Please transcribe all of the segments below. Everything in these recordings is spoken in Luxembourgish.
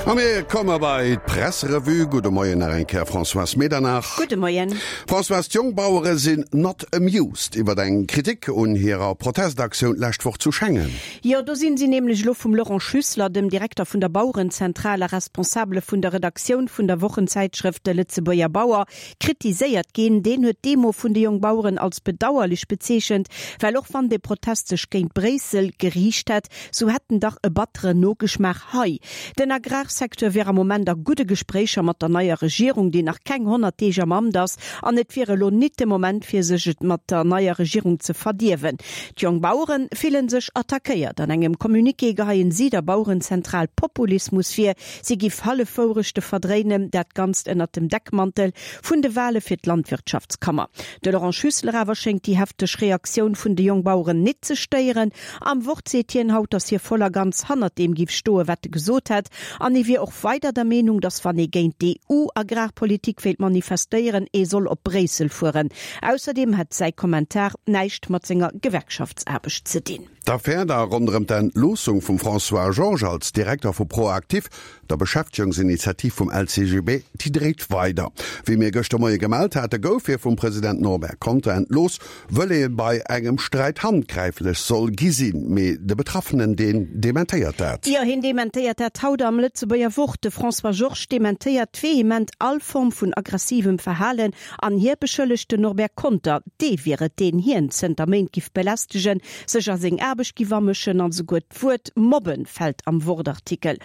A mir komme bei d'Presserevue. Gudde Moien nach eng Kéier, Françoise Medernach. Gudde Moien. Françoise, d'Jongbauere sinn not amused iwwer eng Kritik un hirer Protestaktioun d'lescht Woch zu Schengen. Jo, do sinn si nämlech elo vum Laurent Schüssler, dem Direkter vun der Bauerenzentral a Responsabele vun der Redaktioun vun der Wochenzäitschrëft De Lëtzebuerger Bauer, kritiséiert ginn. Deen huet d'Demo vun de Jongbaueren als bedauerlech bezeechent, well och wann de Protest sech géint Bréissel geriicht hätt, sou hätt en dach e batteren Nogeschmaach hei. Den Agrarsecteur wier am Moment a gudde Gespréicher mat der neier Regierung, déi nach keng 100 Deeg am Amt ass, an et wier elo nit de Moment fir sech et mat der neier Regierung ze verdierwen. D'Jongbauere fillen sech attackéiert. An engem Communiqué geheien si der Bauerenzentral Populismus vir. Si giff Hallefwourechte verdréinen, dat Ganzt ënnert dem Deckmantel vun de Wale fir d'Landwirtschaftskammer. De Laurent Schüssler awer schéngt déi hefteg Reaktioun vun de Jongbaueren nit ze stéieren. Am Wort seet hien haut, datt hie voll a ganz hannert deem giff stoen, wat e gesot hätt. An e wier och weider der Meenung, datt wann ee géint d'EU-Agrarpolitik wéilt manifestéieren, ee soll op Bréissel fueren. Ausserdeem hätt säi Kommentar näischt mat senger Gewerkschaftsaarbecht ze dinn. D'Affär da ronderëm d'Entloossung vum François Georges als Direkter vu ProActif, der Beschäftegungsinitiativ vum LCGB, déi dréit weider. Wéi mir gëschter Moie gemellt hate gouf hie vum President Norbert Conter entlooss, wëll ee bei engem Sträit handgräiflech soll gi sinn. Mee de Betraffenen, deen dementéiert dat. Jo, hien dementéiert dat haut am Lëtzebuerger Wort. De François Georges dementéiert vehement all Form vun aggressivem Verhalen An hie beschëllegt den Norbert Conter, dee wier et, deen hien zënter Méint giff belästegen, sech a seng Aarbecht giff amëschen an esouguer d'Wuert mobben fält am Wort-Artikel.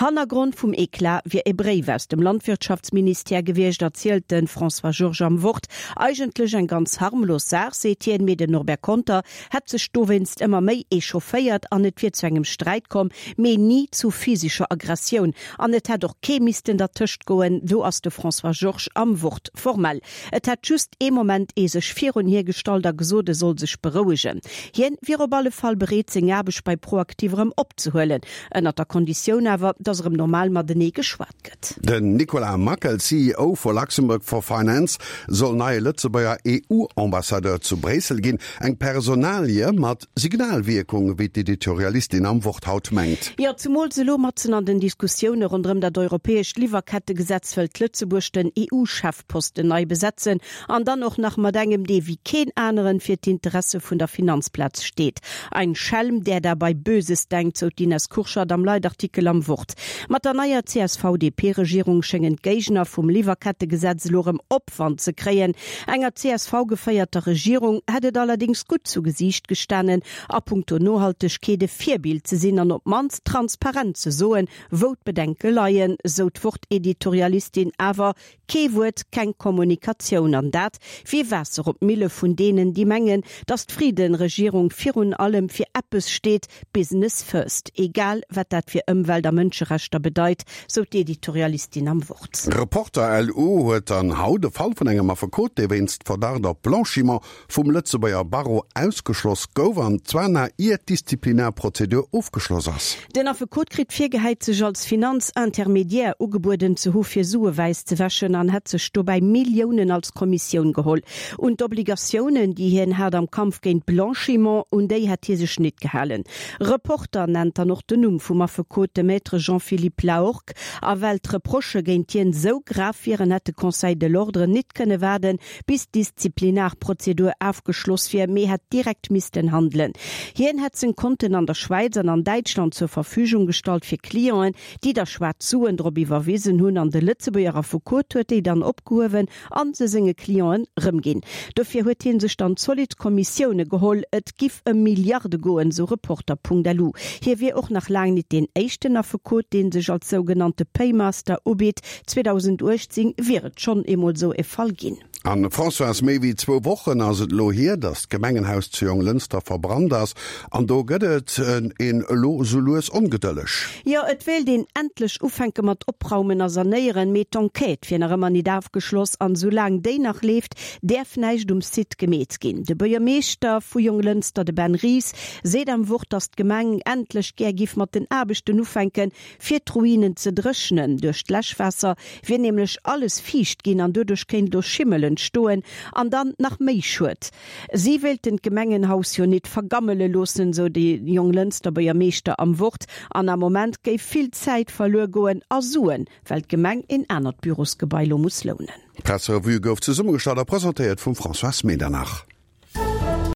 Hannergrond vum Eclat wier e Bréif aus dem Landwirtschaftsministère gewiescht, erzielt de François Georges am Wort. Eigentlech eng ganz harmlos Saach, seet hien, mee den Norbert Conter hätt sech dowéinst ëmmer méi echaufféiert an et wier zu engem Sträit komm, mee ni zu physescher Aggressioun. An et hätt och kee missten dertëscht goen, do ass de François Georges am Wort formell. Et hätt just ee Moment ee sech virun hie gestallt a gesot, e soll sech berouegen. Hien wier op alle Fall bereet, seng Aarbecht bei Proactive erëm opzehuelen, ënnert der Konditioun awer, datt erëm normal matenee geschwat gëtt. Den Nicolas Mackel, CEO vu Luxembourg for Finance, soll neie Lëtzebuerger EU-Ambassadeur zu Bréissel ginn. Eng Personalie mat Signalwierkung, wéi d'Editorialistin am Wort haut mengt. Jo, zumools elo matzen an den Diskussioune ronderëm dat europäescht Liwwerkettegesetz wëllt Lëtzebuerg den EU-Chefposten nei besetzen an dann och nach mat engem, dee wéi keen aneren fir d'Interesse vun der Finanzplaz steet. Ein Schelm, der dabei Böses denkt, sou d'Ines Kurschat am Leitartikel am Wort. Mat der neier CSV-DP-Regierung schéngen d'Géigner vum Liwwerkettegesetz elo erëm Opwand ze kréien. Enger CSV-geféierter Regierung hätt et allerdéngs gutt zu Gesiicht gestanen, a punkto Nohaltegkeet e Virbild ze sinn an op d'mannst transparent ze soen, wou d'Bedenke leien, sou d'Wort-Editorialistin. Awer Kee Wuert, keng Kommunikatioun, an dat wier Waasser op d'Mille vun deenen, déi mengen, datt d'Frieden-Regierung virun allem fir eppes steet, Business first, egal wat dat fir Ëmwelt a Mënscherechter bedeit, sou d'Editorialistin am Wort. Reporter LU huet dann haut e Fall vun engem Affekot, dee wéinst Verdacht op Blanchiment vum Lëtzebuerger Barreau ausgeschloss gouf, an zwar nach ier d'Disziplinarprozedur ofgeschloss ass. Den Affekot kritt virgehäit, sech als Finanzintermediaire ugebueden ze hu fir Sue wäiss ze wäschen an hätt sech dobäi Milliounen als Kommissioun geholl. Un d'Obligatiounen, déi hien hat am Kampf géint Blanchiment, un déi hätt hie sech nit gehalen. Reporter nennt dann och den Numm vum Affekot, de Maître Jean-Philippe Lahorgue. A well d'Reprochë géint hien esou grav wieren, hätt de Conseil de l'Ordre nit kënne waarden, bis d'Disziplinarprozedur afgeschloss wier, mee hätt direkt missten handelen. Hien hätt seng Konten an der Schwäiz an an Däitschland zur Verfügung gestallt fir Clienten, déi da schwaarz Suen drop iwwerwisen hunn, an de Lëtzebuerger Affekot huet déi dann opgehuewen an se senge Clienten rëmginn. Dofir huet hie sech dann zolidd Kommissioune geholl. Et giff ëm Milliarde goen, sou Reporter.lu. Hie wier och nach laang nit deen éischten Affekot, dee sech als sougenannte Paymaster ubitt. 2018 wier et schonn eemol sou e Fall ginn. An Françoise, méi wéi zwou Wochen ass et elo hier, datt d'Gemengenhaus zu Jonglënster verbrannt ass. An do gëtt et een elo sou lues ongedëlleg. Jo, et wéilt een endlech ufänke mat opraumen a sanéieren, mee d'Enquête wier nach ëmmer. ëmmer nit afgeschloss an soulaang déi nach leeft, däerf näischt um Site gemeet ginn. De Buergermeeschter vu Jonglënster, de Ben Ries, seet am Wort, datt d'Gemeng endlech gär giff mat den Aarbechten ufänken, fir d'Ruinen ze dréchnen. Duerch d'Läschwaasser wier nämlech alles fiicht ginn an doduerch kéint elo Schimmel entstoen an dann nach méi Schued. Si wéilten d'Gemengenhaus jo nit vergammele loossen, sou de Jonglënster Buergermeeschter am Wort. An am Moment géif vill Zäit verluer goen a Suen, well d'Gemeng een anert Bürosgebai lo muss lounen. D'Presserevue gouf zesummegestallt a presentéiert vum Françoise Medernach.